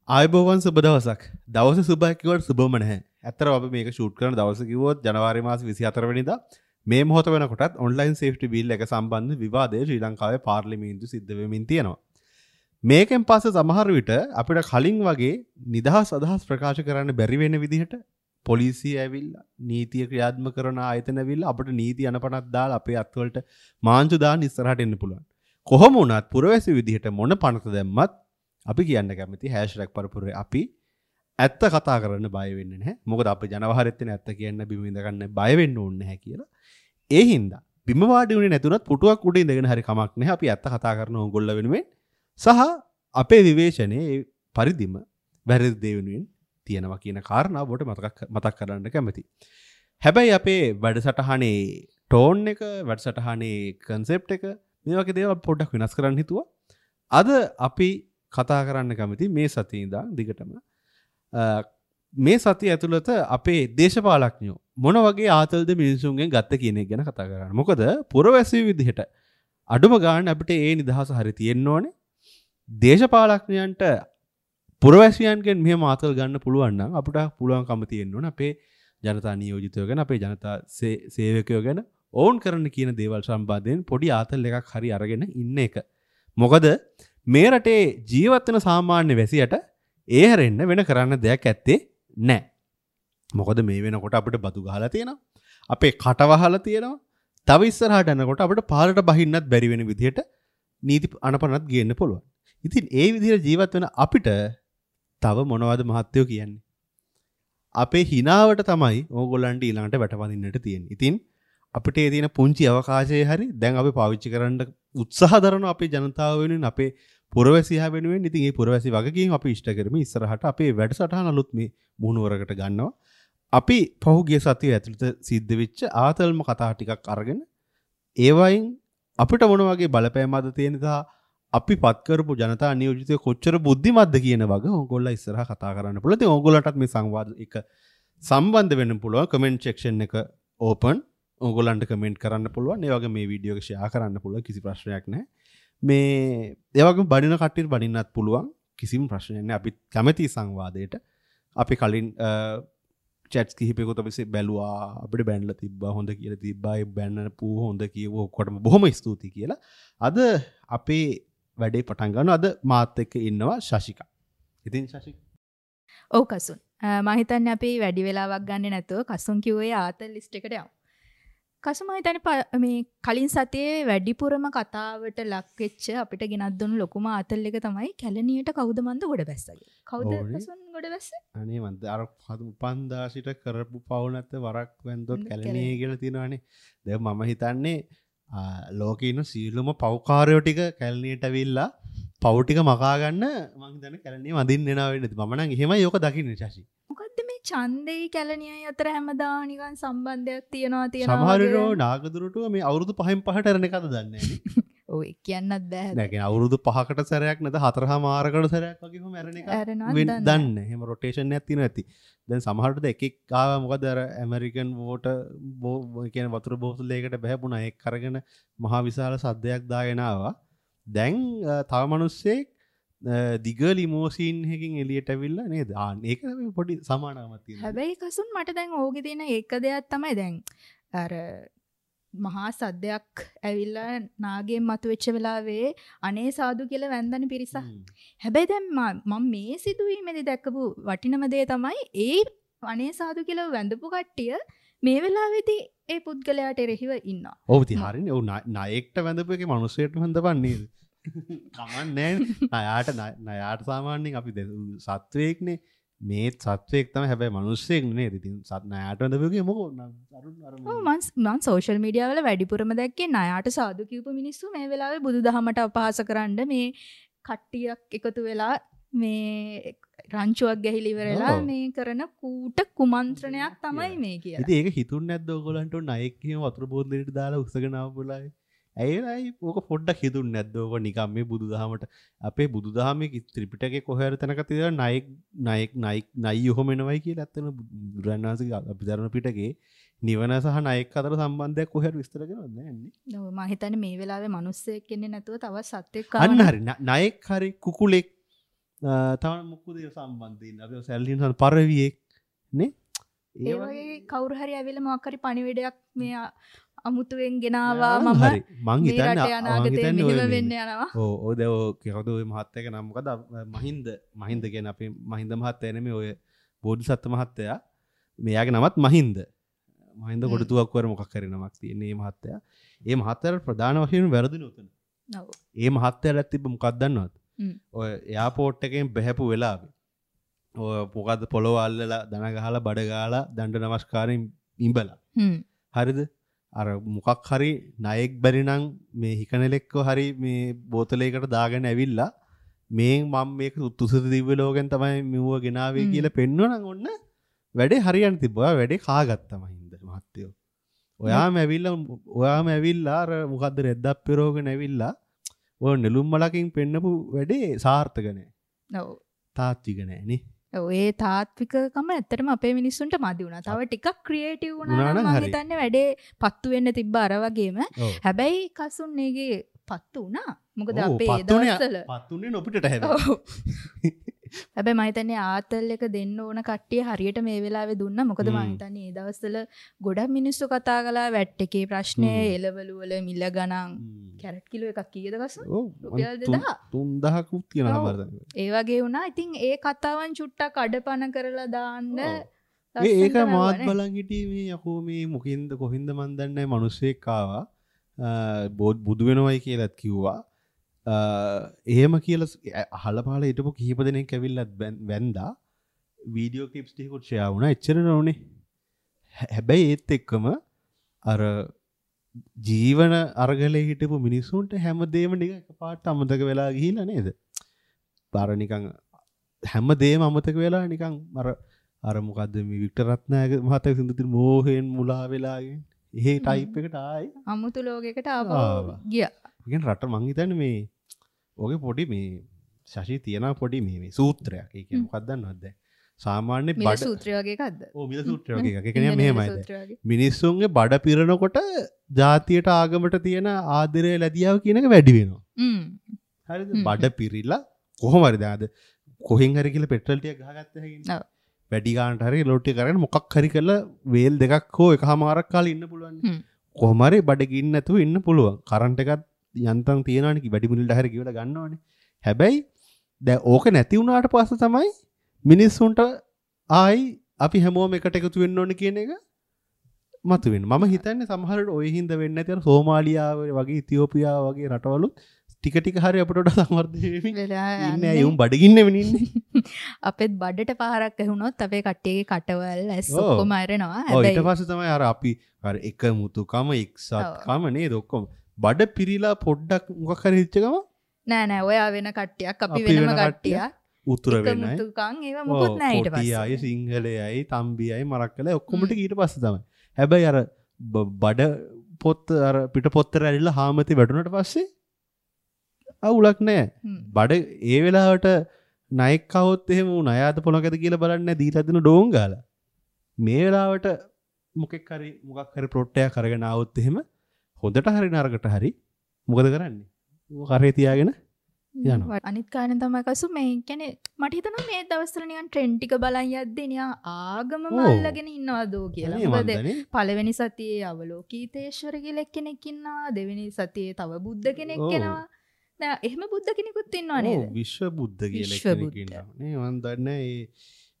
ආයුබෝවන් සුබ දවසක්. දවස සුබයි කිව්වට සුබම නැහැ. ඇත්තටම අපි මේක ෂූට් කරන දවස කිව්වොත් ජනවාරි මාස 24 වෙනිදා මේ මොහොත වෙනකොටත් ඔන්ලයින් සේෆ්ටි බිල් එක සම්බන්ධ විවාදය ශ්‍රී ලංකාවේ පාර්ලිමේන්තු සිද්ධ වෙමින් තියෙනවා. මේකෙන් පස්සේ සමහර විට අපිට කලින් වගේ නිදහස් අදහස් ප්‍රකාශ කරන්න බැරි වෙන විදිහට පොලිසිය ඇවිල්ලා නීතිය ක්‍රියාත්මක කරන ආයතන ඇවිල්ලා අපිට නීති අනපනක් දාලා අපේ අත්වලට මාංචු දාන්න ඉස්සරහට එන්න පුළුවන්. කොහොම වුණත් පුරවැසි විදිහට මොන පනත දැම්මත් අපි කියන්න කැමති #පරපුරේ අපි ඇත්ත කතා කරන්න බය වෙන්නේ නැහැ. මොකද අපි ජනවහරෙත් වෙන ඇත්ත කියන්න බිම ඉඳ ගන්න බය වෙන්න ඕනේ නැහැ කියලා. ඒ හින්දා බිම වාඩි වුණේ නැතුණත් පුටුවක් උඩ ඉඳගෙන හරි කමක් නැහැ. අපි ඇත්ත කතා කරන ඕගොල්ලෝ වෙනුවෙන් සහ අපේ විවේචනයේ ඒ පරිදිම වැරදි දේ වෙනුවෙන් තියෙනවා කියන කාරණාව ඔබට මතක් කරන්න කැමතියි. හැබැයි අපේ වැඩසටහනේ ටෝන් එක, වැඩසටහනේ කන්සෙප්ට් එක මේ වගේ දේවල් පොඩ්ඩක් වෙනස් කරන්න හිතුවා. අද අපි කතා කරන්න කැමති මේ සතියේ ඉඳන් දිගටම මේ සතිය ඇතුළත අපේ දේශපාලඥයෝ මොන වගේ ආතල්ද මිනිසුන්ගෙන් ගත්ත කියන එක ගැන කතා කරන්න. මොකද පුරවැසියෝ විදිහට අඩුම ගාන අපිට ඒ නිදහස හරි තියෙන්න ඕනේ. දේශපාලඥයන්ට පුරවැසියන්ගෙන් මෙහෙම ආතල් ගන්න පුළුවන් නම් අපිට පුළුවන්කම තියෙන්න ඕනේ අපේ ජනතා නියෝජිතයෝ ගැන, අපේ ජනතා සේවකයෝ ගැන ඔවුන් කරන්න කියන දේවල් සම්බන්ධයෙන් පොඩි ආතල් එකක් හරි අරගෙන ඉන්න එක. මොකද මේ රටේ ජීවත් වෙන සාමාන්‍ය වැසියට ඒ හැරෙන්න වෙන කරන්න දෙයක් ඇත්තේ නැහැ. මොකද මේ වෙනකොට අපිට බදු ගහලා තියෙනවා. අපේ කට වහලා තියෙනවා. තව ඉස්සරහට යනකොට අපිට පාරට බහින්නත් බැරි වෙන විදිහට නීති අනපනත් ගේන්න පුළුවන්. ඉතින් ඒ විදිහට ජීවත් වෙන අපිට තව මොනවද මහත්තයෝ කියන්නේ? අපේ හිනාවට තමයි ඕගොල්ලන්ට ඊළඟට වැටවඳින්නට තියෙන්නේ. ඉතින් අපිට ඒ තියෙන පුංචි අවකාශයේ හරි දැන් අපි පාවිච්චි කරන්න උත්සාහ දරන අපේ ජනතාව වෙනුවෙන්, අපේ පුරවැසියා වෙනුවෙන්, ඉතින් ඒ පුරවැසි වගකීම් අපි ඉෂ්ට කරමින් ඉස්සරහට අපේ වැඩසටහන අලුත් මේ මුහුණුවරකට ගන්නවා. අපි පහුගිය සතිය ඇතුළත සිද්ධ වෙච්ච ආතල්ම කතා ටිකක් අරගෙන ඒවයින් අපිට මොන වගේ බලපෑමක්ද තියෙන සහ අපි පත් කරපු ජනතා නියෝජිතයෝ කොච්චර බුද්ධිමත්ද කියන වගේ ඕගොල්ලෝ ඉස්සරහ කතා කරන්න පුළුවන්. ඉතින් ඕගොල්ලන්ටත් මේ සංවාද එක සම්බන්ධ වෙන්න පුළුවන්. කමෙන්ට් සෙක්ෂන් එක ඕපන්. ඕගොල්ලන්ට කමෙන්ට් කරන්න පුළුවන්. ඒ වගේ මේ වීඩියෝ එක ෂෙයා කරන්න පුළුවන්. කිසි ප්‍රශ්නයක් නැහැ. මේ ඒ වගේම බනින කට්ටියට බනින්නත් පුළුවන්. කිසිම ප්‍රශ්නයක් නැහැ. අපි කැමති සංවාදයට. අපි කලින් චැට්ස් කිහිපයකුත් අපි බැලුවා. අපිට බැනලා තිබ්බා, හොඳ කියලා තිබ්බා. ඒ බැනන පූ හොඳ කියව ඔක්කොටම බොහොම ස්තුතියි කියලා. අද අපේ වැඩේ පටන් ගන්නවා. අද මාත් එක්ක ඉන්නවා ශශිකා. ඉතින් ශශිකා. ඔව් කසුන්. මම හිතන්නේ අපි වැඩි වෙලාවක් ගන්නෙ නැතුව කසුන් කිව්වේ ආතල් ලිස්ට් එකට යමු. කසුන් මම හිතන්නේ මේ කලින් සතියේ වැඩිපුරම කතාවට ලක් වෙච්ච අපිට ගෙනත් දුන්නු ලොකුම ආතල් එක තමයි කැලණියට කවුද මන්ද ගොඩ බැස්සා කියලා. කවුද කසුන් ගොඩ බැස්සේ? අනේ මන්ද අර උපන්දා සිට කරපු පව් නැත වරක් වැන්දොත් කැලණියේ කියලා තියෙනවානේ. දැන් මම හිතන්නේ ලෝකේ ඉන්න සියලුම පව්කාරයෝ ටික කැලණියට ඇවිල්ලා පව් ටික මකා ගන්න මං හිතන්නේ කැලණිය වඳින්න එනවා වෙන්නේ. මම නම් එහෙමයි ඔක දකින්නේ ශශි. මොකද්ද මේ ඡන්දෙයි කැලණියයි අතර හැමදාම නිකන් සම්බන්ධයක් තියනවා තියනවා. සමහර වෙලාවට නාගදුරටුව මේ අවුරුදු 5න් 5ට ඇරෙන එකද දන්නේ නැහැ නේ. ඔව් ඒ කියන්නත් බෑ. නෑ කියන්නේ අවුරුදු 5කට සැරයක් නැද 4.5කට සැරයක් වගේ කොහොම ඇරෙන එකක් දන්නේ නැහැ. එහෙම රොටේෂන් එකක් තියෙනවා ඇති. දැන් සමහරවිට එක එක් ආවා මොකද අර ඇමරිකන් වෝටර් කියන වතුර බෝතලයකට බහැපුණා. ඒක අරගෙන මහා විශාල සද්දයක් දාගෙන ආවා. දැන් තව මිනිස්සෙක් දිග ලිමෝසින් එකකින් එළියට ඇවිල්ලා නේද? ආ ඒක පොඩි සමානකමක් තියෙනවා. හැබැයි කසුන් මට දැන් ඕකේ තියෙන එක දෙයක් තමයි දැන් අර මහා සද්දයක් ඇවිල්ලා නාගයෙන් මතුවෙච්ච වෙලාවේ අනේ සාදු කියලා වැන්දන පිරිසක්. හැබැයි දැන් මම මේ සිදුවීමේදී දැකපු වටිනම දේ තමයි ඒ අනේ සාදු කියලා වැඳපු කට්ටිය මේ වෙලාවේදී ඒ පුද්ගලයාට එරෙහිව ඉන්නවා. ඔව් ඉතින් හරිනේ. ඔව් නායකට වැඳපු එකේ මිනිස්සුන්ට වැඳපන් නේද? කමක් නෑනේ. ණයාට සාමාන්‍යයෙන් අපි සත්වයෙක්නේ. මේ සත්වයෙක් තමයි හැබැයි මිනිස්සෙක් නේද? ඉතින් ණයාට වැඳපු එකේ මොකෝ අරුන් අර ඔව් මං සෝෂල් මීඩියා වල වැඩිපුරම දැක්කේ ණයාට සාදු කියපු මිනිස්සු මේ වෙලාවේ බුදුදහමට අපහාස කරන්න මේ කට්ටියක් එකතු වෙලා මේ රංචුවක් ගැහිලා ඉවරලා මේ කරන කූට කුමන්ත්‍රණයක් තමයි මේ කියලා. ඉතින් ඒක හිතුන්නේ නැද්ද ඔයගොල්ලන්ට ණයෙක් එහෙම වතුර බෝතලෙට දාලා උස්සගෙන ආවු වෙලාවේ? ඇයි ඕක පොඩ්ඩක් හිතුන්නේ නැද්ද? ඕක නිකන් මේ බුදුදහමට අපේ බුදුදහමේ ත්‍රිපිටකේ කොහේ හරි තැනක තියෙනවා ණයෙක් ණයෙක් ණයෙක් නයි ඔහොම එනවයි කියලා. ඇත්තටම බුදුරජාණන් වහන්සේගේ අභිධර්ම පිටකේ නිවන සහ ණයෙක් අතර සම්බන්ධයක් කොහේ හරි විස්තර කරනවද නෑනේ. ඔව් මම හිතන්නේ මේ වෙලාවේ මිනිස්සෙක් ඉන්නේ නැතුව තවත් සත්වෙක් ආවනම් අන්න හරි ණයෙක් හරි කුකුලෙක් තව මොකද ඒ සම්බන්ධ ඉන්නේ අපි සැලලින් සම් පරවියෙක් නේ. ඒ වගේ කවුරු හරි ඇවිල්ලා මොකක් හරි පණිවිඩයක් මේ අමුතුවෙන් ගෙනාවා මම මං හිතන්නේ අනාගතේ මෙහෙම වෙන්න යනවා. ඔව් ඔය දැන් ඔය කවුද ඔය මහත්තයාගේ නම මොකද? මහින්ද මහින්ද කියන්නේ අපේ මහින්ද මහත්තයා නෙමෙයි ඔය බෝධිසත්ව මහත්තයා. මෙයාගේ නමත් මහින්ද. මහින්ද කොටුවක් වර මොකක් හරි නමක් තියෙන මේ මහත්තයා. ඒ මහත්තයාට ප්‍රධාන වශයෙන් වැරදුනේ උතන. ඔව්. ඒ මහත්තයාට තිබ්බ මොකක්ද දන්නවද? ඔය එයාපෝට් එකෙන් බහැපු වෙලාවේ ඔය මොකද්ද පොළොව අල්ලලා දන ගහලා බඩ ගාලා දණ්ඩ නමස්කාරයෙන් ඉඹලා. හරිද? අර මොකක් හරි ණයෙක් බැරි නම් මේ හිකනෙලෙක්ව හරි මේ බෝතලයකට දාගෙන ඇවිල්ලා මේ මම මේක තුසිත දිව්‍ය ලෝකෙන් තමයි මෙව්ව ගෙනාවේ කියලා පෙන්නුවා නම් ඔන්න වැඩේ හරියන්න තිබ්බා. ඔයා වැඩේ කාගත්තා මහින්ද මහත්තයෝ. ඔයාම ඇවිල්ලා අර මොකද්ද රෙද්දක් පෙරෝගෙන ඇවිල්ලා ඔය නෙළුම් මලකින් පෙන්නපු වැඩේ සාර්ථක නෑ. ඔව්. තාත්වික නෑ නේ. ඔව් ඒ තාත්විකකම ඇත්තටම අපේ මිනිස්සුන්ට මදි වුණා. තව ටිකක් ක්‍රියේටිව් වුණා නම් මං හිතන්නේ වැඩේ පත්තු වෙන්න තිබ්බ අර වගේම. හැබැයි කසුන් ඒකේ පත්තු වුණා. මොකද අපේ ඒ දවස්වල පත්තුනේ නොපිටට හැබැයි. හැබැයි මං හිතන්නේ ආතල් එක දෙන්න ඕන කට්ටිය හරියට මේ වෙලාවේ දුන්නා. මොකද මං හිතන්නේ ඒ දවස්වල ගොඩක් මිනිස්සු කතා කළා වැට් එකේ ප්‍රශ්නේ, එළවලු වල මිල ගණන්, කැරට් කිලෝ එකක් කීයද කසුන්? රුපියල් 2000 3000කුත් තියෙනවා සමහර තැන්වල. ඒ වගේ වුණා. ඉතින් ඒ කතාවන් චුට්ටක් අඩපණ කරලා දාන්න. ඒක මාත් බලන් හිටියේ මේ යකෝ මේ මොකින්ද කොහින්ද මන් දන්නේ නැහැ මිනිස්සෙක් ආවා බුදු වෙනවයි කියලාත් කිව්වා. එහෙම කියලා අහලා පහලා හිටපු කිහිප දෙනෙක් ඇවිල්ලත් වැන්දා. වීඩියෝ ක්ලිප්ස් ටිකකුත් ෂෙයා වුණා. එච්චර නෝනේ. හැබැයි ඒත් එක්කම අර ජීවන අරගලේ හිටපු මිනිස්සුන්ට හැමදේම නිකන් එකපාරට අමතක වෙලා ගිහිල්ලා නේද? අර නිකන් හැමදේම අමතක වෙලා නිකන් අර අර මොකද්ද මේ වික්ටර් රත්නායක මහත්තයා සින්දු තියෙන මෝහයෙන් මුලා වෙලා එහෙ ටයිප් එකට ආයි අමුතු ලෝකයකට ආපහු ගියා. ඒ කියන්නේ රට මං හිතන්නේ මේ ඔගේ පොඩි මේ ශශි තියන පොඩි මේ මේ සූත්‍රයක්. ඒ කියන්නේ මොකක්ද දන්නවද දැන්? සාමාන්‍ය බඩ මිල සූත්‍රය වගේ එකක්ද? ඔව් මිල සූත්‍රය වගේ එකක්. ඒ කියන්නේ මෙහෙමයි දැන්. මිනිස්සුන්ගේ බඩ පිරෙනකොට ජාතියට ආගමට තියෙන ආදරය ලැබියාව කියන එක වැඩි වෙනවා. හරිද? බඩ පිරිලා කොහොම හරි දැන් අද කොහෙන් හරි කියලා පෙට්‍රල් ටිකක් ගහගත්ත හැකිනේ. ඔව්. වැඩි ගානට හරි ලෝඩ් ටික අරගෙන මොකක් හරි කරලා වේල් දෙකක් හෝ එකහමාරක් කාලේ ඉන්න පුළුවන්. කොහොම හරි බඩ ගින්න නැතුව ඉන්න පුළුවන්. කරන්ට් එකත් යන්තම් තියෙනවනේ වැඩි මුලින්ට හරි කියවලා ගන්නවනේ. හැබැයි දැන් ඕක නැති වුණාට පස්සේ තමයි මිනිස්සුන්ට ආයි අපි හැමෝම එකට එකතු වෙන්න ඕනේ කියන එක මතුවෙන්නේ. මම හිතන්නේ සමහර වෙලාවට ඔය හින්දා වෙන්නේ නැති අර සෝමාලියාව වගේ ඉතියෝපියාව වගේ රටවලුත් ටික ටික හරි අපිට වඩා සංවර්ධනය වෙමින් ඉන්නේ. අය උන් බඩගින්නෙම ඉන්නේ. අපෙත් බඩට පාරක් ඇහුනොත් අපේ කට්ටියගේ කටවල් ඇස් ඔක්කොම අරනවා. හැබැයි ඊට පස්සේ තමයි අර අපි අර එකමුතුකම එක්සත්කම නේද ඔක්කොම බඩ පිරීලා පොඩ්ඩක් මොකක් හරි හිච්ච ගම නෑ නෑ ඔයා වෙන කට්ටියක් අපි වෙනම කට්ටියක් උතුර වෙනයි එකමුතුකම් ඒවා මොකුත් නෑ ඊට පස්සේ. කොටි අය සිංහලයයි තම්බි අය මරක්කලයි ඔක්කොම ටික ඊට පස්සේ තමයි. හැබැයි අර බඩ පොත් අර පිට පොත්තර ඇරිලා හාමති වැටුණට පස්සේ අවුලක් නෑ. බඩ ඒ වෙලාවට ණයෙක් කවොත් එහෙම ඌ ණයාද පොළකද කියලා බලන්නේ නෑ දීලා දෙන ඩෝන් ගාලා. මේ වෙලාවට මොකෙක් හරි මොකක් හරි ප්ලොට් එකක් අරගෙන ආවොත් එහෙම හොඳට හරි නරකට හරි මොකද කරන්නේ? ඌ කරේ තියාගෙන යනවා. අනිත් කාරණේ තමයි කසු මේ කියන්නේ මට හිතෙනවා මේ දවස්වල නිකන් ට්‍රෙන්ඩ් ටික බලන් යද්දී නිකන් ආගමම අල්ලගෙන ඉන්නවදෝ කියලා. මොකද පළවෙනි සතියේ අවලෝකීතේශ්වර කියලා එක්කෙනෙක් ඉන්නවා, දෙවෙනි සතියේ තව බුද්ධ කෙනෙක් එනවා. නෑ එහෙම බුද්ධ කෙනෙකුත් ඉන්නවා නේද? ඔව් විශ්ව බුද්ධ කියලා කෙනෙක් ඉන්නවා. නේ මං දන්නේ ඒ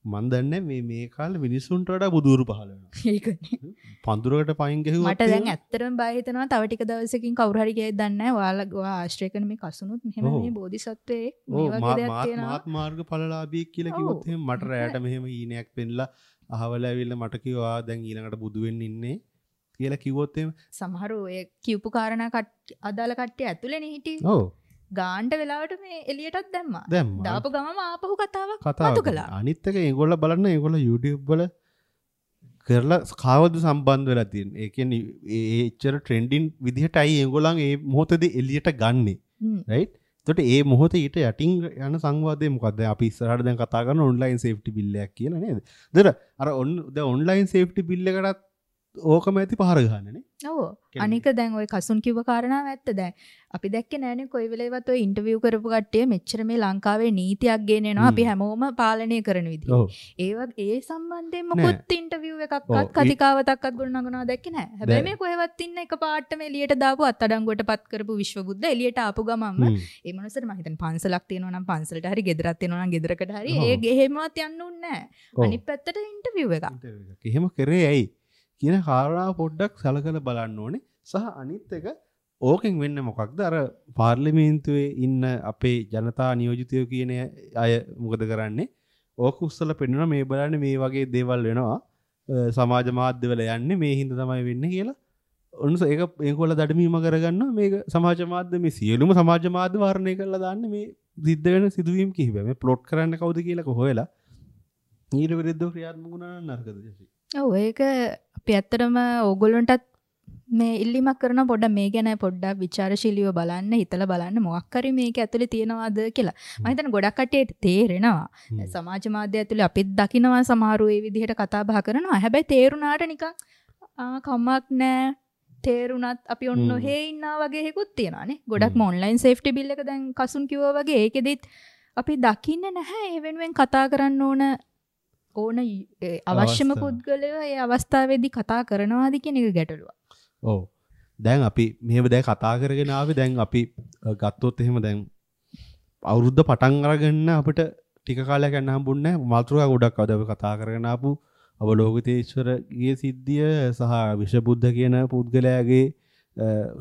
මං දන්නේ මේ මේ කාලේ මිනිස්සුන්ට වඩා බුදුරු පහළ වෙනවා. ඒකනේ. පඳුරකට පයින් ගැහුවොත් මට දැන් ඇත්තටම බය හිතෙනවා තව ටික දවසකින් කවුරු හරි කියයි දන්නේ නැහැ ඔයාලා ඔයා ආශ්‍රය කරන මේ කසුනුත් මෙහෙම මේ බෝධිසත්වයෙක් මේ වගේ දෙයක් තියෙනවා. මාත් මාර්ගඵලලාභියෙක් කියලා කිව්වොත් එහෙම මට රැයට මෙහෙම හීනයක් පෙන්ලා අහවල ඇවිල්ලා මට කිව්වා දැන් ඊළඟට බුදු වෙන්න ඉන්නේ කියලා කිව්වොත් එහෙම සමහරු ඔය කියපු කාරණා අදාළ කට්ටිය ඇතුලේනේ හිටියේ. ඔව්. ගාන්ට වෙලාවට මේ එළියටත් දැම්මා. දාපු ගමම ආපහු කතාවක් මතු කළා. අනිත් එක ඒගොල්ලෝ බලන්න ඒගොල්ලෝ YouTube වල කරලා කාවද සම්බන්ධ වෙලා තියෙන්නේ. ඒ කියන්නේ ඒ එච්චර ට්‍රෙන්ඩින් විදිහටයි ඒගොල්ලන් ඒ මොහොතේදී එළියට ගන්නෙ. රයිට්? එතකොට ඒ මොහොතේ ඊට යටින් යන සංවාදය මොකද්ද? අපි ඉස්සරහට දැන් කතා කරන ඔන්ලයින් සේෆ්ටි බිල් එකක් කියලා නේද? එතකොට අර දැන් ඔන්ලයින් සේෆ්ටි බිල් එකටත් ඕකම ඇති පහර ගහන්නේ නේ. ඔව්. අනික දැන් ඔය කසුන් කිව්ව කාරණාව ඇත්ත. දැන් අපි දැක්කේ නෑනේ කොයි වෙලේවත් ඔය ඉන්ටර්විව් කරපු කට්ටිය මෙච්චර මේ ලංකාවේ නීතියක් ගෙනෙනවා අපි හැමෝම පාලනය කරන විදිහ. ඒ සම්බන්ධයෙන් මොකොත් ඉන්ටර්විව් එකක්වත් කතිකාවතක්වත් ගොඩනගනවා දැක්කේ නෑ. හැබැයි මේ කොහෙවත් ඉන්න එක පාටම එළියට දාපු අත්අඩංගුවට පත් කරපු විශ්වබුද්ධ එළියට ආපු ගමන්ම ඒ මනුස්සට මම හිතන්නේ පන්සලක් තියෙනවා නම් පන්සලට හරි ගෙදරක් තියෙනවා නම් ගෙදරකට හරි ඒ ගෙහෙමවත් යන්න උන්නේ නෑ. අනිත් පැත්තට ඉන්ටර්විව් එකක්. එහෙම කරේ ඇයි කියන කාරණාව පොඩ්ඩක් සලකලා බලන්න ඕනේ. සහ අනිත් එක ඕකෙන් වෙන්නේ මොකක්ද? අර පාර්ලිමේන්තුවේ ඉන්න අපේ ජනතා නියෝජිතයෝ කියන අය මොකද කරන්නේ? ඕක උස්සලා පෙන්නනවා මේ බලන්න මේ වගේ දේවල් වෙනවා. සමාජ මාධ්‍යවල යන්නේ මේ හින්දා තමයි වෙන්නේ කියලා. ඔන්න ඒක ඒගොල්ලෝ දඩමීම කරගන්නවා. මේක සමාජ මාධ්‍ය මේ සියලුම සමාජ මාධ්‍ය වර්ණය කරලා දාන්නේ මේ සිද්ධ වෙන සිදුවීම් කිහිපය. මේ ප්ලොට් කරන්න කවුද කියලා හොයලා ඊට විරුද්ධව ක්‍රියාත්මක වුණා නම් නරකද ජෙසි? ඔව් ඒක අපි ඇත්තටම ඕගොල්ලන්ටත් මේ ඉල්ලීමක් කරනවා පොඩ්ඩක් මේ ගැන පොඩ්ඩක් විචාරශීලීව බලන්න, හිතලා බලන්න මොකක් හරි මේක ඇතුලේ තියෙනවද කියලා. මම හිතන්නේ ගොඩක් කට්ටියට තේරෙනවා. සමාජ මාධ්‍ය ඇතුලේ අපිත් දකිනවා සමහරු ඒ විදිහට කතා බහ කරනවා. හැබැයි තේරුණාට නිකන් ආ කමක් නෑ තේරුණත් අපි ඔන්න ඔහේ ඉන්නා වගේ එකකුත් තියෙනවා නේ. ගොඩක්ම ඔන්ලයින් සේෆ්ටි බිල් එක දැන් කසුන් කිව්වා වගේ ඒකෙදිත් අපි දකින්නේ නැහැ ඒ වෙනුවෙන් කතා කරන්න ඕන ඕන අවශ්‍යම පුද්ගලයෝ ඒ අවස්ථාවේදී කතා කරනවාද කියන එක ගැටලුවක්. ඔව්. දැන් අපි මෙහෙම දැන් කතා කරගෙන ආවේ දැන් අපි ගත්තොත් එහෙම දැන් අවුරුද්ද පටන් අරගෙන අපිට ටික කාලයක් යන්න හම්බුන්නේ නැහැ. මාතෘකා ගොඩක් අද අපි කතා කරගෙන ආපු අවලෝකිතේශ්වරගේ සිද්ධිය සහ විෂබුද්ධ කියන පුද්ගලයාගේ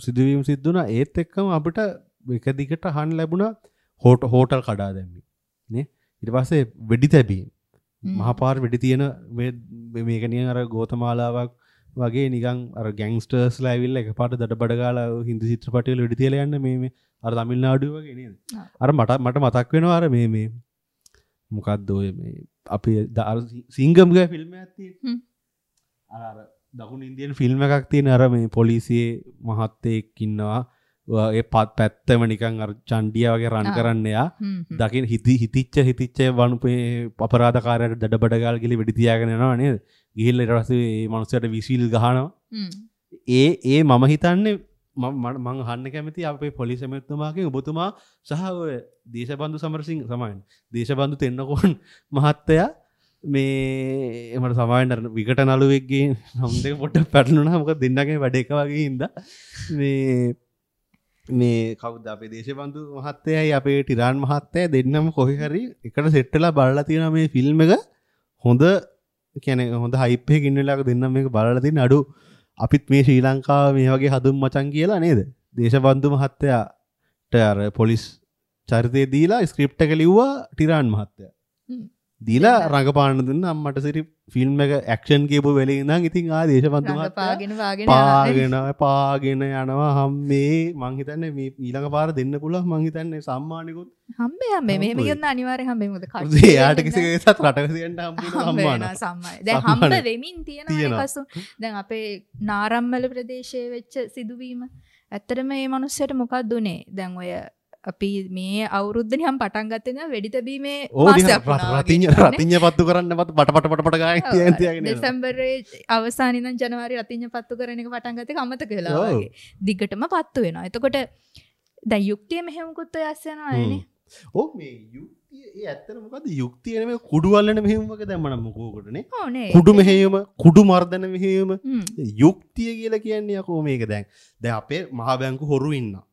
සිදුවීම් සිද්ධ වුණා. ඒත් එක්කම අපිට එක දිගට අහන්න ලැබුණා හෝටල් කඩා දැම්මි නේ. ඊට පස්සේ වෙඩි තැබීම්. මහපාර වෙඩි තියෙන මේක නිකන් අර ගෝතමාලාවක් වගේ නිකන් අර ගැන්ග්ස්ටර්ස්ලා ඇවිල්ලා එකපාරට දඩබඩ ගාලා හින්දි චිත්‍රපටි වල වෙඩි තියලා යන්න මේ මේ අර තමිල්නාඩුවේ වගේ නේද? අර මට මතක් වෙනවා අර මේ මේ මොකද්ද ඔය මේ අපි අර සිංගම් ගෑ ෆිල්ම් එකක් තියෙන්නේ. අර අර දකුණු ඉන්දියන් ෆිල්ම් එකක් තියෙන අර මේ පොලිසියේ මහත්තයෙක් ඉන්නවා. ඒ පැත්තම නිකන් අර චණ්ඩියා වගේ රන් කරන්න එයා දකින හිතිච්ච වනුපේ අපරාධකාරයාට දඩබඩ ගාලා ගිහලා වෙඩි තියාගෙන යනවා නේද? ගිහිල්ලා ඊට පස්සේ මේ මනුස්සයාට විසිල් ගහනවා. ඒ ඒ මම හිතන්නේ මම අහන්න කැමති අපේ පොලිස් ඇමතිතුමාගෙන් ඔබතුමා සහ ඔය දේශබන්දු සමරසිංහ සමාවෙන්න දේශබන්දු තෙන්නකෝන් මහත්තයා මේ මට සමාවෙන්න අර විකට නළුවෙක්ගේ නම් දෙක පොඩ්ඩක් පැටලුණා. මොකද දෙන්නගේ වැඩ එක වගේ හින්දා මේ මේ කවුද අපේ දේශබන්දු මහත්තයයි අපේ ටිරාන් මහත්තයයි දෙන්නම කොහේ හරි එකට සෙට් වෙලා බලලා තියෙනවා මේ ෆිල්ම් එක. හොඳ කියන්නේ හොඳ හයිප් එකක ඉන්න වෙලාවක දෙන්නම මේක බලලා තියෙන අඩු අපිත් මේ ශ්‍රී ලංකාව මේ වගේ හදුම් මචං කියලා නේද? දේශබන්දු මහත්තයාට අර පොලිස් චරිතය දීලා ස්ක්‍රිප්ට් එක ලිව්වා ටිරාන් මහත්තයා. දීලා රඟපාන්න දුන්න අම්මට සිරි ෆිල්ම් එක ඇක්ෂන් කියපු වෙලේ ඉඳන් ඉතින් ආ දේශබන්දු මහත්තයා පාගෙන යනවා හම්මේ. මං හිතන්නේ මේ ඊළඟ පාර දෙන්න පුළුවන් මං හිතන්නේ සම්මානිකුත් හම්බේ හම්බේ මෙහෙම කියන්න අනිවාර්යෙන් හම්බේ. මොකද කට්ටිය එයාට කිසි කෙනෙක්වත් රටක තියන්න හම්බ වෙන සම්මාන දැන් හම්බ වෙමින් තියෙනවානේ කසු. දැන් අපේ නාරම්මල ප්‍රදේශයේ වෙච්ච සිදුවීම ඇත්තටම මේ මනුස්සයට මොකක්ද උනේ? දැන් ඔය අපි මේ අවුරුද්ද නිකන් පටන් ගත්තේ නෑ වෙඩි තැබීමේ මාසයක් වුණා. රතිඤ්ඤ පත්තු කරන්න පත් පට පට පට පට ගාගෙන තියාගෙන තියාගෙන යනවා. දෙසැම්බරේ අවසානයේ ඉඳන් ජනවාරි රතිඤ්ඤ පත්තු කරන එක පටන් ගත්ත එක අමතක වෙලා වගේ. දිගටම පත්තු වෙනවා. එතකොට දැන් යුක්තිය මෙහෙමකුත් ඔය අස්ස යනවා නේ. ඔව් මේ යුක්තිය ඒ ඇත්තට මොකද්ද යුක්තිය නෙමෙයි කුඩු අල්ලන මෙහෙයුම වගේ දැම්ම නම් මොකෝකට නේ. ඔව් නේ. කුඩු මෙහෙයුම, කුඩු මර්ධන මෙහෙයුම. යුක්තිය කියලා කියන්නේ යකෝ මේක දැන්. දැන් අපේ මහා බැංකු හොරු ඉන්නවා.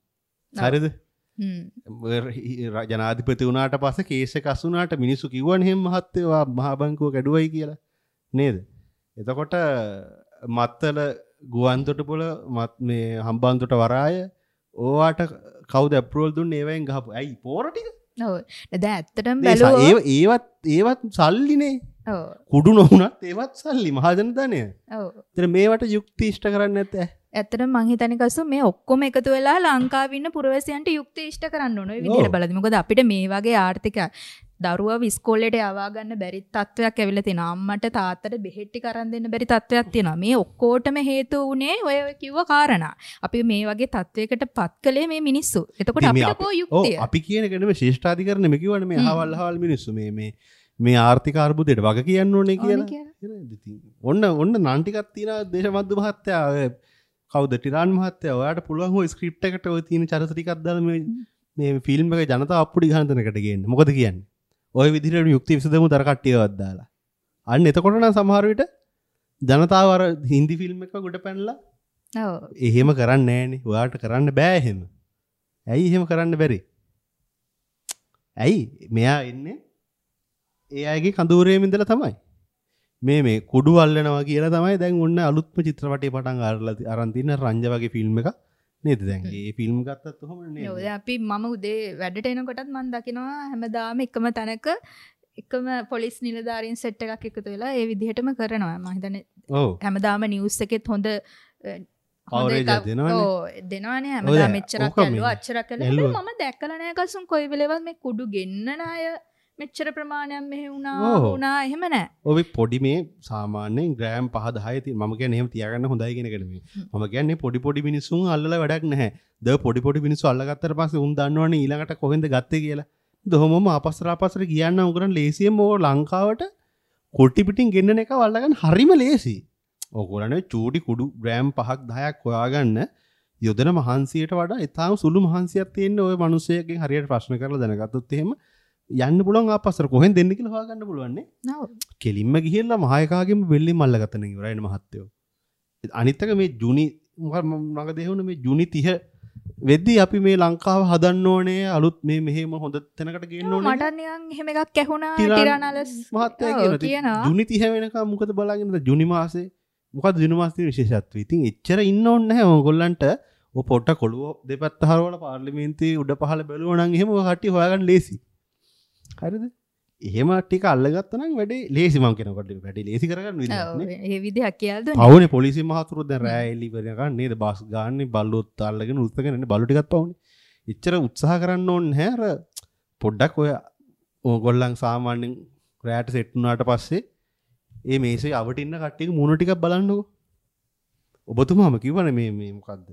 හරිද? ජනාධිපති වුණාට පස්සේ කේස් එක අසු වුණාට මිනිස්සු කිව්වනේ එහෙම මහත්තයෝ ආ මහා බැංකුව කැඩුවයි කියලා නේද? එතකොට මත්තල ගුවන්තොටුපොළ මත් මේ හම්බන්තොට වරාය ඕවාට කවුද ඇප්‍රූවල් දුන්නේ ඒවෙන් ගහපු ඇයි පෝර ටික? ඔව් දැන් ඇත්තටම බැලුවොත් ඒවත් සල්ලිනේ. ඔව් කුඩු නොවුනත් ඒවත් සල්ලි මහජන ධනය. ඔව් ඉතින් මේවට යුක්ති ඉෂ්ට කරන්නේ නැත්තේ. ඇත්තටම මං හිතන්නේ කසු මේ ඔක්කොම එකතු වෙලා ලංකාවේ ඉන්න පුරවැසියන්ට යුක්ති ඉෂ්ට කරන්න ඕන. ඔය විදිහට බලද්දි. මොකද අපිට මේ වගේ ආර්ථික දරුවව ඉස්කෝලේට යවා ගන්න බැරි තත්ත්වයක් ඇවිල්ලා තියෙනවා. අම්මට තාත්තට බෙහෙත් ටික අරන් දෙන්න බැරි තත්ත්වයක් තියෙනවා. මේ ඔක්කොටම හේතුව උනේ ඔය කිව්ව කාරණා. අපි මේ වගේ තත්ත්වයකට පත් කළේ මේ මිනිස්සු. එතකොට අපිට කෝ යුක්තිය? ඔව් අපි කියන එක නෙමෙයි ශ්‍රේෂ්ඨාධිකරණ නෙමෙයි කිව්වනේ මේ අහවල් අහවල් මිනිස්සු මේ මේ මේ ආර්ථික අර්බුදයට වග කියන්න ඕනේ කියලා. ඉතින් ඔන්න ඔන්න නන් ටිකක් තියෙනවා දේශබන්දු මහත්තයා, ඔය කවුද ටිරාන් මහත්තයා, ඔයාට පුළුවන් ඔය ස්ක්‍රිප්ට් එකට ඔය තියෙන චරිත ටිකක් දාලා මේ මේ ෆිල්ම් එක ජනතාව අප්පුඩි ගහන තැනකට ගේන්න. මොකද කියන්නේ? ඔය විදිහට යුක්ති විසඳමු දර කට්ටියවත් දාලා. අන්න එතකොට නම් සමහර විට ජනතාව අර හින්දි ෆිල්ම් එක ගොඩ පැනලා ඔව් එහෙම කරන්නේ නෑනේ. ඔයාට කරන්න බෑ එහෙම. ඇයි එහෙම කරන්න බැරි? ඇයි මෙයා එන්නේ ඒ අයගේ කඳවුරේම ඉඳලා තමයි. මේ මේ කුඩු අල්ලනවා කියලා තමයි දැන් ඔන්න අලුත්ම චිත්‍රපටය පටන් අරන් තියෙන රංජ වගේ ෆිල්ම් එකක් නේද දැන්? ඒ ෆිල්ම් ගත්තත් ඔහොම නේද? ඔව් දැන් අපි මම උදේ වැඩට එනකොටත් මම දකිනවා හැමදාම එකම තැනක එකම පොලිස් නිලධාරීන් සෙට් එකක් එකතු වෙලා ඒ විදිහටම කරනවා. මම හිතන්නේ ඔව් හැමදාම නිවුස් එකෙත් හොඳ කවරේජ් එකක් දෙනවනේ. ඔව් දෙනවනේ හැමදාම මෙච්චරක් ඇල්ලුවා අච්චරක් ඇල්ලුවා. මම දැකලා නෑ කසුන් කොයි වෙලේවත් මේ කුඩු ගෙන්නන අය මෙච්චර ප්‍රමාණයක් මෙහෙ වුණා වුණා එහෙම නෑ. ඔය පොඩි මේ සාමාන්‍යයෙන් ග්‍රෑම් 5 10 තියෙන මම කියන්නේ එහෙම තියාගන්න හොඳයි කියන එක නෙමෙයි. මම කියන්නේ පොඩි පොඩි මිනිස්සුන් අල්ලලා වැඩක් නැහැ. ද පොඩි පොඩි මිනිස්සු අල්ලගත්තට පස්සේ උන් දන්නවනේ ඊළඟට කොහෙන්ද ගත්තේ කියලා. දොහොමම ආපස්සට ආපස්සට ගියන්න උගරන් ලේසියෙන්ම ඕ ලංකාවට කොටි පිටින් ගෙන්නන එක අල්ලගන්න හරිම ලේසි. ඕගොල්ලනේ චූටි කුඩු ග්‍රෑම් 5ක් 10ක් හොයාගන්න යොදන මහන්සියට වඩා ඉතාම සුළු මහන්සියක් තියෙන ඔය මිනිස්සෙක්ගෙන් හරියට ප්‍රශ්න කරලා දැනගත්තොත් එහෙම යන්න පුළුවන් ආපස්සට කොහෙන් දෙන්න කියලා හොයාගන්න පුළුවන් නේ. ඔව්. කෙලින්ම ගිහිල්ලා මහ එකාගෙම බෙල්ලෙන් අල්ලගත්තා නේ ඉවරයිනේ මහත්තයෝ. අනිත් එක මේ ජුනි මඟ දෙහුණ මේ ජුනි 30 වෙද්දී අපි මේ ලංකාව හදන්න ඕනේ අලුත් මේ මෙහෙම හොඳ තැනකට ගේන්න ඕනේ. මට නිකන් එහෙම එකක් ඇහුණා ටිරානලස් මහත්තයා කියනවා. ජුනි 30 වෙනකම් මොකද බලාගෙන ඉඳලා ජුනි මාසේ මොකද ජුනි මාසේ තියෙන විශේෂත්වය. ඉතින් එච්චර ඉන්න ඕනේ නැහැ ඕගොල්ලන්ට. ඔය පොට්ට කොළුව දෙපැත්ත හරවලා පාර්ලිමේන්තුවේ උඩ පහළ බැලුවා නම් එහෙම ඔය කට්ටිය හොයාගන්න ලේසි. හරිද? එහෙම ටික අල්ලගත්තා නම් වැඩේ ලේසි. මං කියනකොට වැඩේ ලේසි කරගන්න විදිහක් නේ. ඒ විදිහක් කියලා දුන්නේ. පවුනේ පොලිසිය මහතුරු දැන් රෑ එලි වෙනකන් නේද බස් ගාන්නේ බල්ලොත් අල්ලගෙන උස්සගෙන ඉන්නේ බල්ලෝ ටිකත් පවුනේ. එච්චර උත්සාහ කරන්න ඕනේ නැහැ. අර පොඩ්ඩක් ඔය ඕගොල්ලන් සාමාන්‍යයෙන් රෑට සෙට් වුණාට පස්සේ ඒ මේසේ අවට ඉන්න කට්ටියගේ මූණ ටිකක් බලන්නකෝ. ඔබතුමාම කිව්වනේ මේ මේ මොකද්ද?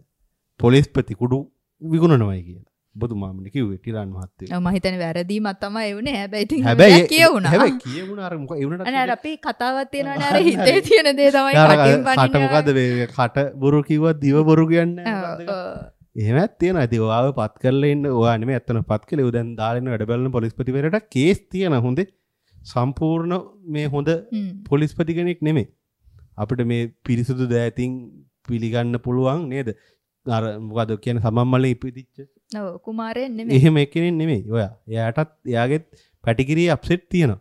පොලිස්පති කුඩු විකුණනවයි කියලා. ඔබතුමාමනේ කිව්වේ ටිරාන් මහත්තයෝ. ඔව් මම හිතන්නේ වැරදීමක් තමයි ඒ වුනේ. හැබැයි ඉතින් හැබැයි කියවුණා. හැබැයි කියවුණා අර මොකද ඒ වුණාට අනේ අර අපි කතාවක් තියෙනවනේ අර හිතේ තියෙන දේ තමයි කටින් පනින්නේ. කට මොකද්ද මේ කට බොරු කිව්වත් දිව බොරු කියන්නේ නැහැ මොකද්ද? එහෙමත් තියෙනවා. ඉතින් ඔයාව පත් කරලා ඉන්න ඔයා නෙමෙයි ඇත්තටම පත් කළේ. ඔය දැන් දාලා ඉන්න වැඩ බලන පොලිස්පතිවරයාට කේස් තියෙන හොඳේ. සම්පූර්ණ මේ හොඳ පොලිස්පති කෙනෙක් නෙමෙයි. අපිට මේ පිරිසුදු දෑතින් පිළිගන්න පුළුවන් නේද? අර මොකද කියන්නේ සමන් මලේ ඉපදිච්ච ඔව් කුමාරයෙක් නෙමෙයි. එහෙම එක්කෙනෙක් නෙමෙයි. ඔයා. එයාටත් එයාගෙත් පැටිකිරියේ අප්සෙට් තියෙනවා.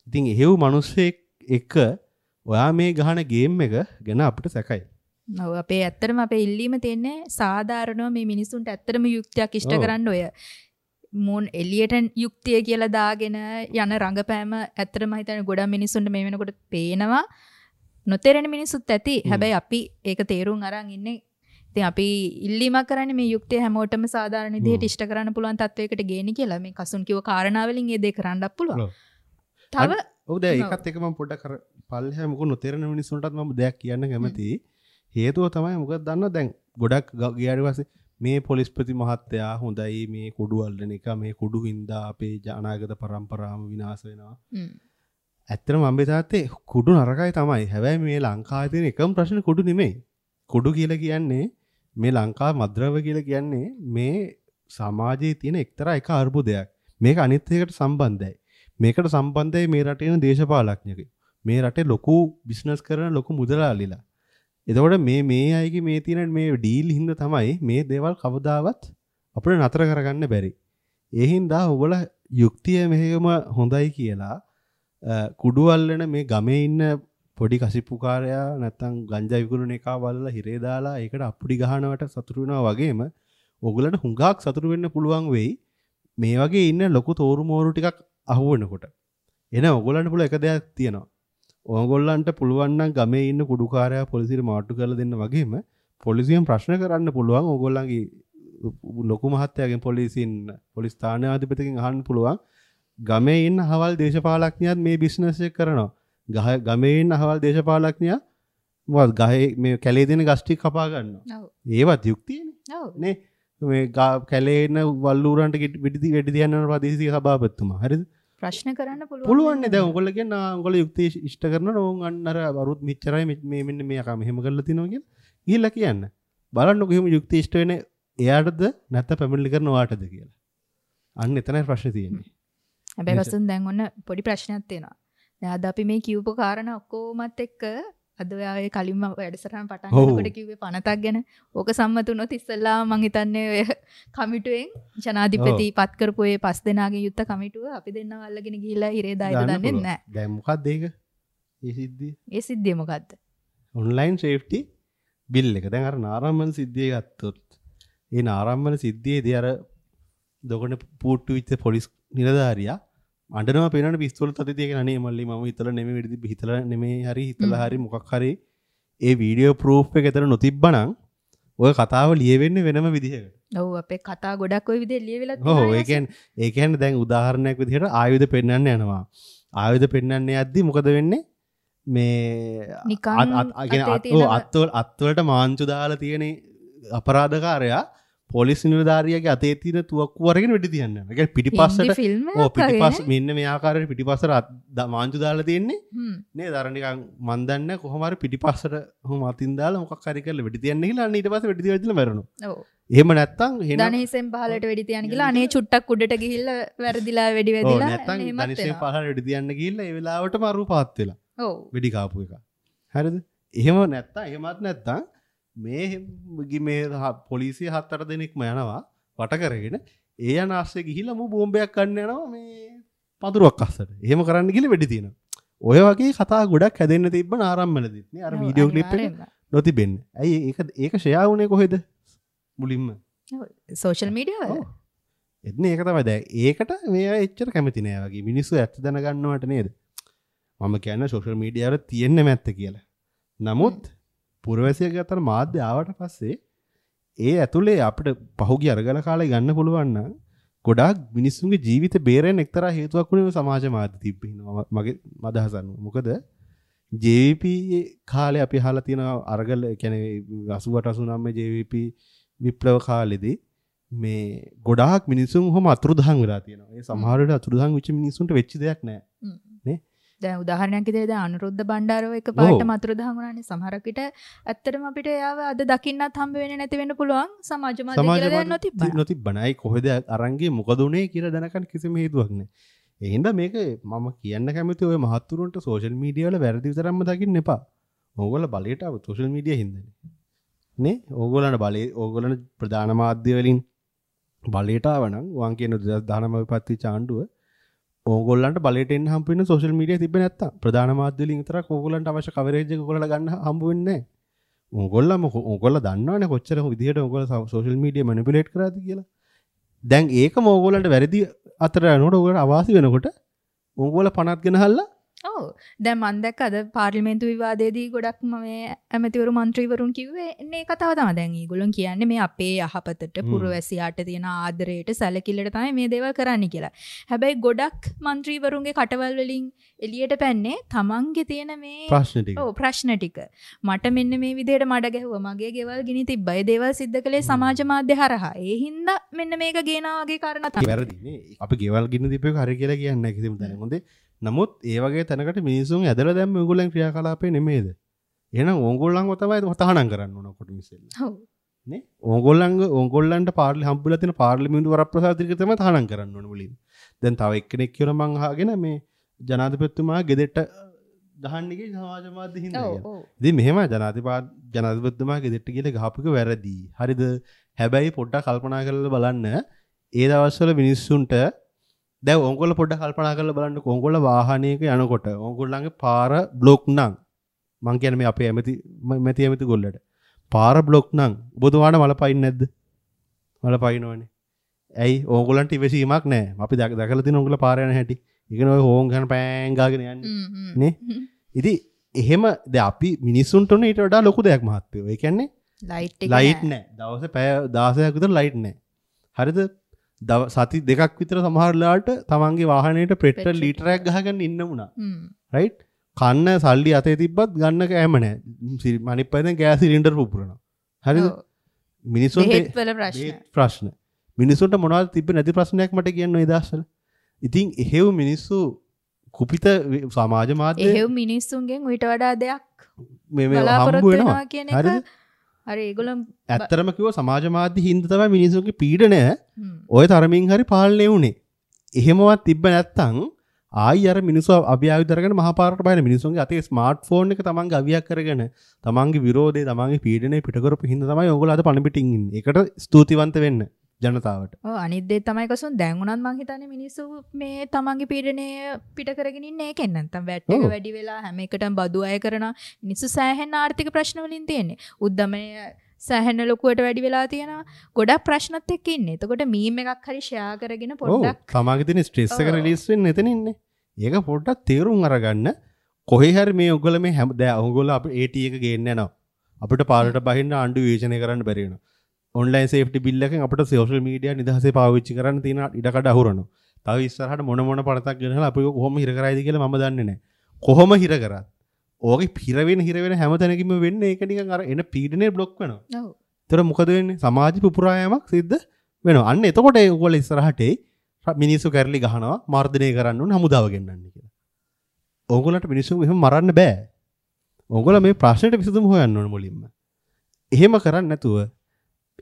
ඉතින් එහෙව් මිනිස්සෙක් එක ඔයා මේ ගහන ගේම් එක ගැන අපිට සැකයි. ඔව් අපේ ඇත්තටම අපේ ඉල්ලීම තියෙන්නේ සාධාරණව මේ මිනිසුන්ට ඇත්තටම යුක්තියක් ඉෂ්ට කරන්න ඔය මොන් එළියට යුක්තිය කියලා දාගෙන යන රංගපෑම ඇත්තටම හිතන්නේ ගොඩක් මිනිසුන්ට මේ වෙනකොට පේනවා. නොතේරෙන මිනිසුත් ඇති. හැබැයි අපි ඒක තේරුම් අරන් ඉන්නේ. ඉතින් අපි ඉල්ලීමක් කරන්නේ මේ යුක්තිය හැමෝටම සාධාරණ විදිහට ඉෂ්ට කරන්න පුළුවන් තත්වයකට ගේන්න කියලා. මේ කසුන් කිව්ව කාරණා වලින් ඒ දේ කරන්නත් පුළුවන්. තව ඔව් දැන් ඒකත් එක මම පොඩ්ඩක් අර පල්ලෙහා මොකද නොතේරෙන මිනිස්සුන්ටත් මම දෙයක් කියන්න කැමතියි. හේතුව තමයි මොකද දන්නවද දැන් ගොඩක් ගියාට පස්සේ මේ පොලිස්පති මහත්තයා හොඳයි මේ කුඩු අල්ලන එක මේ කුඩු හින්දා අපේ අනාගත පරම්පරාවම විනාශ වෙනවා. ඇත්තටම අම්බේ තාත්තේ කුඩු නරකයි තමයි. හැබැයි මේ ලංකාවේ තියෙන එකම ප්‍රශ්නේ කුඩු නෙමෙයි. කුඩු කියලා කියන්නේ මේ ලංකාව මද්ද්‍රව්‍ය කියලා කියන්නේ මේ සමාජයේ තියෙන එක්තරා එක අර්බුදයක්. මේක අනිත් එකට සම්බන්ධයි. මේකට සම්බන්ධයි මේ රටේ ඉන්න දේශපාලඥයෝ. මේ රටේ ලොකු බිස්නස් කරන ලොකු මුදලාලිලා. එතකොට මේ මේ අයගේ මේ තියෙන මේ ඩීල් හින්දා තමයි මේ දේවල් කවදාවත් අපිට නතර කරගන්න බැරි. ඒ හින්දා ඔයගොල්ලෝ යුක්තිය මෙහෙම හොඳයි කියලා කුඩු අල්ලන මේ ගමේ ඉන්න පොඩි කසිප්පුකාරයා නැත්තම් ගංජා විකුණන එකා බලලා හිරේ දාලා ඒකට අප්පුඩි ගහනවට සතුටු වෙනවා වගේම ඔයගොල්ලන්ට හුඟක් සතුටු වෙන්න පුළුවන් වෙයි මේ වගේ ඉන්න ලොකු තෝරු මෝරු ටිකක් අහු වෙනකොට. එන ඔයගොල්ලන්ට පුළුවන් එක දෙයක් තියෙනවා. ඔයගොල්ලන්ට පුළුවන් නම් ගමේ ඉන්න කුඩුකාරයා පොලිසියට මාට්ටු කරලා දෙන්න වගේම පොලිසියෙන් ප්‍රශ්න කරන්න පුළුවන් ඔයගොල්ලන්ගේ ලොකු මහත්තයාගෙන් පොලිසියෙන් පොලිස් ස්ථානාධිපතිගෙන් අහන්න පුළුවන් ගමේ ඉන්න අහවල් දේශපාලඥයාත් මේ බිස්නස් එක කරනවා. ගමේ ඉන්න අහවල් දේශපාලඥයා මොකද ගහේ මේ කැලේ තියෙන ගස් ටික කපා ගන්නවා. ඒවත් යුක්තියනේ. නේ මේ කැලේ ඉන්න වල්ලූරන්ට වෙඩි තියන්න යන ප්‍රදේශීය සභාපතිතුමා. හරිද? ප්‍රශ්න කරන්න පුළුවන්. පුළුවන් නේ. දැන් ඔයගොල්ලෝ කියන්නේ ඔයගොල්ලෝ යුක්තිය ඉෂ්ට කරනවා ඕන් අන්න අර අරුත් මෙච්චරයි මේ මෙන්න මේ අකා මෙහෙම කරලා තිනවා කියලා ගිහිල්ලා කියන්න. බලන්නකෝ එහෙම යුක්තිය ඉෂ්ට වෙන්නේ එයාටද නැත්නම් පැමිණිලි කරන ඔයාටද කියලා. අන්න එතනයි ප්‍රශ්නේ තියෙන්නේ. හැබැයි වසුන් දැන් ඔන්න පොඩි ප්‍රශ්නයක් තියෙනවා. දැන් අද අපි මේ කියපු කාරණා ඔක්කොමත් එක්ක අද ඔයා ඒ කලින්ම වැඩසටහන පටන් ගන්නකොට කිව්වේ පනතක් ගැන. ඕක සම්මත වුණොත් ඉස්සෙල්ලා මං හිතන්නේ ඔය කමිටුවෙන් ජනාධිපති පත් කරපු ඒ පස් දෙනාගෙන් යුක්ත කමිටුව අපි දෙන්නව අල්ලගෙන ගිහිල්ලා හිරේ දායිද දන්නේ නැහැ. දැන් මොකද්ද ඒක? ඒ සිද්ධිය? ඒ සිද්ධිය මොකද්ද? ඔන්ලයින් සේෆ්ටි බිල් එක. දැන් අර නාරම්මන සිද්ධිය ගත්තොත් ඒ නාරම්මන සිද්ධියේදී අර දොගන පුට්ටු වෙච්ච පොලිස් නිලධාරියා අඬනවා පේනවනේ පිස්තෝල තද තියගෙන අනේ මල්ලි මම හිතලා නෙමෙයි වෙඩි තිබ්බේ හිතලා නෙමෙයි හරි හිතලා හරි මොකක් හරි ඒ වීඩියෝ ප්‍රූෆ් එක එතන නොතිබ්බනම් ඔය කතාව ලියවෙන්නේ වෙනම විදිහකට. ඔව් අපේ කතා ගොඩක් ඔය විදිහට ලියවිලා තියෙනවා. ඔව් ඒ කියන්නේ දැන් උදාහරණයක් විදිහට ආයුධ පෙන්වන්න යනවා. ආයුධ පෙන්වන්න යද්දි මොකද වෙන්නේ? මේ අත්වලට මාංචු දාලා තියෙන අපරාධකාරයා පොලිස් නිලධාරියාගේ අතේ තියෙන තුවක්කුව අරගෙන වෙඩි තියන්න යනවා. ඒ කියන්නේ පිටිපස්සට ඔව් පිටිපස්ස මෙන්න මේ ආකාරයට පිටිපස්සට මාංචු දාලා තියෙන්නේ නේද? අර නිකන් මන් දන්නේ කොහොම හරි පිටිපස්සට ඔහොම අතින් දාලා මොකක් හරි කරලා වෙඩි තියන්න කියලා අන්න ඊට පස්සේ වෙඩි තියලා මැරෙනවා. ඔව්. එහෙම නැත්තම් ධනහිසෙන් පහලට වෙඩි තියන්න කියලා අනේ චුට්ටක් උඩට ගිහිල්ලා වැරදිලා වෙඩි වැදිලා ඔව් නැත්තම් ධනහිසෙන් පහලට වෙඩි තියන්න ගිහිල්ලා ඒ වෙලාවටම අරු පාත් වෙලා. ඔව්. වෙඩි කාපු එක. හරිද? එහෙම නැත්තම් එහෙමත් නැත්තම් මේ මේ පොලිසිය 7-8 දෙනෙක්ම යනවා වට කරගෙන ඒ යන ආස්සේ ගිහිල්ලා මූ බෝම්බයක් ගන්න යනවා මේ පඳුරුවක් අස්සට. එහෙම කරන්න ගිහලා වෙඩි තියෙනවා. ඔය වගේ කතා ගොඩක් හැදෙන්න තිබ්බ නාරම්මලදීත් නේ අර වීඩියෝ ක්ලිප් එක නොතිබෙන්නේ. ඇයි ඒක ෂෙයා වුණේ කොහෙද? මුලින්ම සෝෂල් මීඩියා වල. එන්නේ ඒක තමයි. දැන් ඒකට මේ අය එච්චර කැමති නෑ වගේ. මිනිස්සු ඇත්ත දැනගන්නවට නේද? මම කියන්නේ සෝෂල් මීඩියා වල තියෙන්නම ඇත්ත කියලා. නමුත් පුරවැසියගේ අතර මාධ්‍ය ආවට පස්සේ ඒ ඇතුලේ අපිට පහුගිය අරගල කාලේ ගන්න පුළුවන් නම් ගොඩාක් මිනිස්සුන්ගේ ජීවිත බේරෙන්න එක්තරා හේතුවක් වුණේ සමාජ මාධ්‍ය තිබ්බේ මගේ අදහස අනුව. මොකද JVP කාලේ අපි අහලා තියෙන අරගල ඒ කියන්නේ 88 89 JVP විප්ලව කාලෙදී මේ ගොඩාක් මිනිස්සුන් ඔහොම අතුරුදහන් වෙලා තියෙනවා. ඒ සමහර වෙලාවට අතුරුදහන් වෙච්ච මිනිස්සුන්ට වෙච්ච දෙයක් නෑ. නේ? දැන් උදාහරණයක් විදිහට දැන් අනුරුද්ධ බණ්ඩාරව එකපාරටම අතුරුදහන් වුණානේ. සමහරක් විට ඇත්තටම අපිට එයාව අද දකින්නත් හම්බ වෙන්නේ නැති වෙන්න පුළුවන් සමාජ මාධ්‍ය කියලා දෙයක් නොතිබ්බන. නොතිබ්බන. අයි කොහෙද අරන් ගියේ මොකද උනේ කියලා දැනගන්න කිසිම හේතුවක් නැහැ. ඒ හින්දා මේක මම කියන්න කැමති ඔය මහත්තුරුන්ට සෝෂල් මීඩියා වල වැරදි විතරක්ම දකින්න එපා. ඕගොල්ලෝ බලයට ආව සෝෂල් මීඩියා හින්දානේ. නේ? ඕගොල්ලන්ට බලේ ඕගොල්ලන් ප්‍රධාන මාධ්‍ය වලින් බලයට ආව නම් වන් කියන 2019 විපත්ති ආණ්ඩුව ඕගොල්ලන්ට බලයට එන්න හම්බ වෙන සෝෂල් මීඩියා තිබ්බේ නැත්තම් ප්‍රධාන මාධ්‍ය වලින් විතරක් ඕගොල්ලන්ට අවශ්‍ය කවරේජ් එක ඕගොල්ලන්ට ගන්න හම්බ වෙන්නේ නැහැ. ඕගොල්ලම ඕගොල්ලෝ දන්නවනේ කොච්චර විදිහට ඕගොල්ලෝ සෝෂල් මීඩියා මැනිපියුලේට් කරාද කියලා. දැන් ඒකම ඕගොල්ලන්ට වැරදි අතර යනකොට ඕගොල්ලන්ට අවාසි වෙනකොට ඕගොල්ලෝ පනත් ගෙනහල්ලා ඔව් දැන් මං දැක්ක අද පාර්ලිමේන්තු විවාදයේදී ගොඩක්ම මේ ඇමතිවරු මන්ත්‍රීවරුන් කිව්වේ එන්නේ ඒ කතාව තමයි. දැන් ඒගොල්ලෝ කියන්නේ මේ අපේ යහපතට පුරවැසියාට තියෙන ආදරයට සැලකිල්ලට තමයි මේ දේවල් කරන්නේ කියලා. හැබැයි ගොඩක් මන්ත්‍රීවරුන්ගේ කටවල් වලින් එළියට පැන්නේ තමන්ගේ තියෙන මේ ප්‍රශ්න ටික. ඔව් ප්‍රශ්න ටික. මට මෙන්න මේ විදිහට මඩ ගැහුවා. මගේ ගෙවල් ගිනි තිබ්බා. ඒ දේවල් සිද්ධ කළේ සමාජ මාධ්‍ය හරහා. ඒ හින්දා මෙන්න මේක ගේනවා වගේ කාරණා තමයි. වැරදි නේ. අපි ගෙවල් ගිනි තිබ්බ එක හරි කියලා කියන්නේ නැහැ කිසිම තැනක. හොඳේ. නමුත් ඒ වගේ තැනකට මිනිසුන් ඇදලා දැම්ම ඕගොල්ලන් ක්‍රියාකලාපේ නෙමෙයිද? එහෙනම් ඕගොල්ලන්ව තමයි තහනම් කරන්න ඕන ඔක්කොටම ඉස්සෙල්ලා. ඔව්. නේ? ඕගොල්ලන්ට හම්බුලා තියෙන පාර්ලිමේන්තු වරප්‍රසාද ටික තමයි තහනම් කරන්න ඕන මුලින්ම. දැන් තව එක්කෙනෙක් කියලා මං අහගෙන මේ ජනාධිපතිතුමා ගෙදරට ගහන්න ගියේ සමාජ මාධ්‍ය හින්දා කියලා. ඉතින් මෙහෙම ජනාධිපතිතුමා ගෙදරට ගිහලා ගහපු එක වැරදි. හරිද? හැබැයි පොඩ්ඩක් කල්පනා කරලා බලන්න ඒ දවස්වල මිනිස්සුන්ට දැන් ඕගොල්ලෝ පොඩ්ඩක් කල්පනා කරලා බලන්නකෝ. ඕගොල්ලෝ වාහනයක යනකොට ඕගොල්ලන්ගේ පාර බ්ලොක් නම් මං කියන්නේ මේ අපේ ඇමති ගොල්ලට පාර බ්ලොක් නම් ඔබතුමාට මල පයින් නැද්ද? මල පයින්නවනේ. ඇයි? ඕගොල්ලන්ට ඉවසීමක් නැහැ. අපි දැකලා තියෙන ඕගොල්ලෝ පාර යන හැටි. ඒ කියන්නේ ඔය හෝන් ගහන පෑන් ගාගෙන යන්නේ නේ. ඉතින් එහෙම දැන් අපි මිනිස්සුන්ට උනේ ඊට වඩා ලොකු දෙයක් මහත්තයෝ. ඒ කියන්නේ ලයිට් එක ලයිට් නැහැ. දවසේ පැය 16ක් විතර ලයිට් නැහැ. හරිද? සති දෙකක් විතර සමහර වෙලාවට තමන්ගේ වාහනේට පෙට්‍රල් ලීටරයක් ගහගන්න ඉන්න වුණා. රයිට්? කන්න සල්ලි අතේ තිබ්බත් ගන්න කෑම නෑ. අනිත් පැත්තෙන් ගෑස් සිලින්ඩර් පුපුරනවා. හරිද? මිනිස්සුන්ට බෙහෙත් වල ප්‍රශ්න. ප්‍රශ්න. මිනිස්සුන්ට මොනවද තිබ්බ නැති ප්‍රශ්නයක් මට කියන්න ඔය දවස්වල. ඉතින් එහෙව් මිනිස්සු කුපිත සමාජ මාධ්‍ය එහෙව් මිනිස්සුන්ගෙන් ඊට වඩා දෙයක් මේ හම්බ වෙනවා කියන එක. හරි ඒගොල්ලෝ ඇත්තටම කිව්ව සමාජ මාධ්‍ය හින්දා තමයි මිනිස්සුන්ගේ පීඩනය ඔය තරමින් හරි පාලනය වුනේ. එහෙමවත් තිබ්බ නැත්තම් ආයි අර මිනිස්සු අභියායුධ අරගෙන මහපාරට බහින මිනිස්සුන්ගේ අතේ ස්මාර්ට්ෆෝන් එක තමන්ගේ අවියක් කරගෙන තමන්ගේ විරෝධය තමන්ගේ පීඩනය පිට කරපු හින්දා තමයි ඔයගොල්ලෝ අද පණ පිටින් ඉන්නේ. ඒකට ස්තුතිවන්ත වෙන්න ජනතාවට. ඔව් අනිත් දේ තමයි කසුන් දැන් උනත් මං හිතන්නේ මිනිස්සු මේ තමන්ගේ පීඩනය පිට කරගෙන ඉන්නේ ඒකෙන්. නැත්තම් වැට් එක වැඩි වෙලා හැම එකටම බදු අය කරනවා. මිනිස්සු සෑහෙන ආර්ථික ප්‍රශ්න වලින් තියෙන්නේ. උද්දමනය සෑහෙන ලොකුවට වැඩි වෙලා තියෙනවා. ගොඩක් ප්‍රශ්නත් එක්ක ඉන්නේ. එතකොට මීම් එකක් හරි ෂෙයා කරගෙන පොඩ්ඩක් තමන්ගේ තියෙන ස්ට්‍රෙස් එක රිලීස් වෙන්න එතන ඉන්නේ. ඒක පොඩ්ඩක් තේරුම් අරගන්න. කොහේ හරි මේ ඔයගොල්ලෝ මේ හැම දැන් ඔයගොල්ලෝ අපි AT එක ගේන්න යනවා. අපිට පාරට බහින්න ආණ්ඩු විවේචනය කරන්න බැරි වෙනවා. ඔන්ලයින් සේෆ්ටි බිල් එකෙන් අපිට සෝෂල් මීඩියා නිදහසේ පාවිච්චි කරන්න තියෙන ඉඩකඩ අහුරනවා. තව ඉස්සරහට මොන මොන පරතක් ගෙනහලා අපි කොහොම හිර කරයිද කියලා මම දන්නේ නැහැ. කොහොම හිර කරත් ඕකේ හිර වෙන හැම තැනකින්ම වෙන්නේ ඒක නිකන් අර එන පීඩනේ බ්ලොක් වෙනවා. ඔව්. ඒතර මොකද වෙන්නේ? සමාජ පුපුරා යාමක් සිද්ධ වෙනවා. අන්න එතකොට ඒගොල්ලෝ ඉස්සරහට එයි මිනිස්සු කැරලි ගහනවා, මර්ධනය කරන්න ඕන, හමුදාව ගෙන්නන්න කියලා. ඕගොල්ලන්ට මිනිස්සු එහෙම මරන්න බෑ. ඕගොල්ලෝ මේ ප්‍රශ්නෙට විසඳුම හොයන්න ඕන මුලින්ම. එහෙම කරන්නේ නැතුව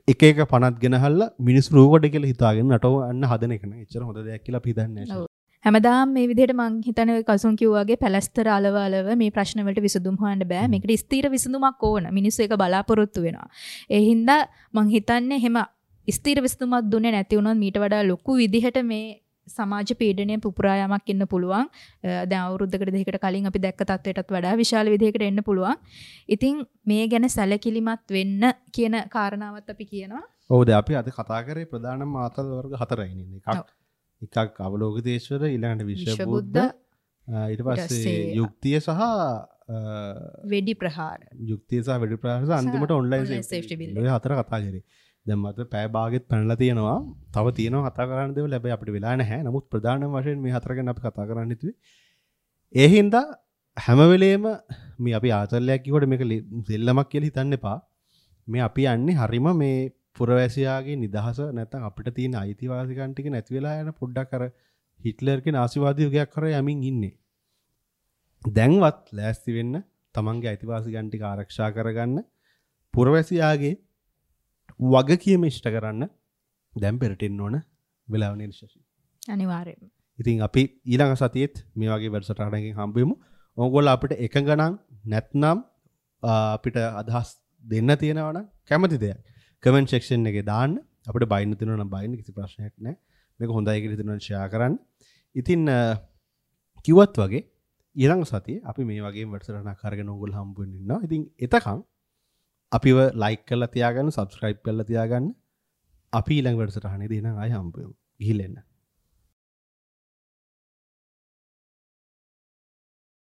එක එක පනත් ගෙනහල්ලා මිනිස්සු රූකඩ කියලා හිතාගෙන නටව අන්න හදන එක නෑ. එච්චර හොඳ දෙයක් කියලා අපි හිතන්නේ නෑ. හැමදාම මේ විදිහට මං හිතන්නේ ඔය කසුන් කිව්වා වගේ පැලැස්තර අලව අලව මේ ප්‍රශ්න වලට විසඳුම් හොයන්න බෑ. මේකට ස්ථිර විසඳුමක් ඕන. මිනිස්සු ඒක බලාපොරොත්තු වෙනවා. ඒ හින්දා මං හිතන්නේ එහෙම ස්ථිර විසඳුමක් දුන්නේ නැති වුණොත් මීට වඩා ලොකු විදිහට මේ සමාජ පීඩනය පුපුරා යාමක් එන්න පුළුවන්. දැන් අවුරුද්දකට දෙකකට කලින් අපි දැක්ක තත්ත්වයටත් වඩා විශාල විදිහකට එන්න පුළුවන්. ඉතින් මේ ගැන සැලකිලිමත් වෙන්න කියන කාරණාවත් අපි කියනවා. ඔව් දැන් අපි අද කතා කරේ ප්‍රධානම ආතල් වර්ග හතරයි නේද? එකක් අවලෝකිතේශ්වර, ඊළඟට විශ්වබුද්ධ, ඊට පස්සේ යුක්තිය සහ වෙඩි ප්‍රහාර. යුක්තිය සහ වෙඩි ප්‍රහාර සහ අන්තිමට ඔන්ලයින් සේෆ්ටි බිල්. ඔය හතර කතා කරේ. දැන් මට පැය භාගෙත් පැනලා තියෙනවා. තව තියෙනවා කතා කරන්න දේවල්. හැබැයි අපිට වෙලා නැහැ. නමුත් ප්‍රධානම වශයෙන් මේ හතර ගැන අපි කතා කරන්න හිතුවේ. ඒ හින්දා හැම වෙලේම මේ අපි ආතල්ලයක් කිව්වට මේක සෙල්ලමක් කියලා හිතන්න එපා. මේ අපි යන්නේ හරිම මේ පුරවැසියාගේ නිදහස නැත්නම් අපිට තියෙන අයිතිවාසිකම් ටික නැති වෙලා යන පොඩ්ඩක් අර හිට්ලර්ගේ නාසිවාදී යුගයක් කරා යමින් ඉන්නේ. දැන්වත් ලෑස්ති වෙන්න තමන්ගේ අයිතිවාසිකම් ටික ආරක්ෂා කරගන්න පුරවැසියාගේ වගකීම ඉෂ්ට කරන්න දැන් පෙරට එන්න ඕන වෙලාව නේද ශශි? අනිවාර්යයෙන්ම. ඉතින් අපි ඊළඟ සතියේත් මේ වගේ වැඩසටහනකින් හම්බ වෙමු. ඕගොල්ලෝ අපිට එකඟ නම් නැත්නම් අපිට අදහස් දෙන්න තියෙනවා නම් කැමති දෙයක් කමෙන්ට් සෙක්ෂන් එකේ දාන්න. අපිට බයින්න තියෙනවා නම් බයින්න, කිසි ප්‍රශ්නයක් නැහැ. මේක හොඳයි කියලා හිතනවා නම් ෂෙයා කරන්න. ඉතින් කිව්වත් වගේ ඊළඟ සතියේ අපි මේ වගේම වැඩසටහනක් අරගෙන ඕගොල්ලෝ හම්බ වෙන්න ඉන්නවා. ඉතින් එතකන් අපිව ලයික් කරලා තියාගන්න, සබ්ස්ක්‍රයිබ් කරලා තියාගන්න. අපි ඊළඟ වැඩසටහනේදී එහෙනම් ආයෙ හම්බ වෙමු. ගිහින් එන්න.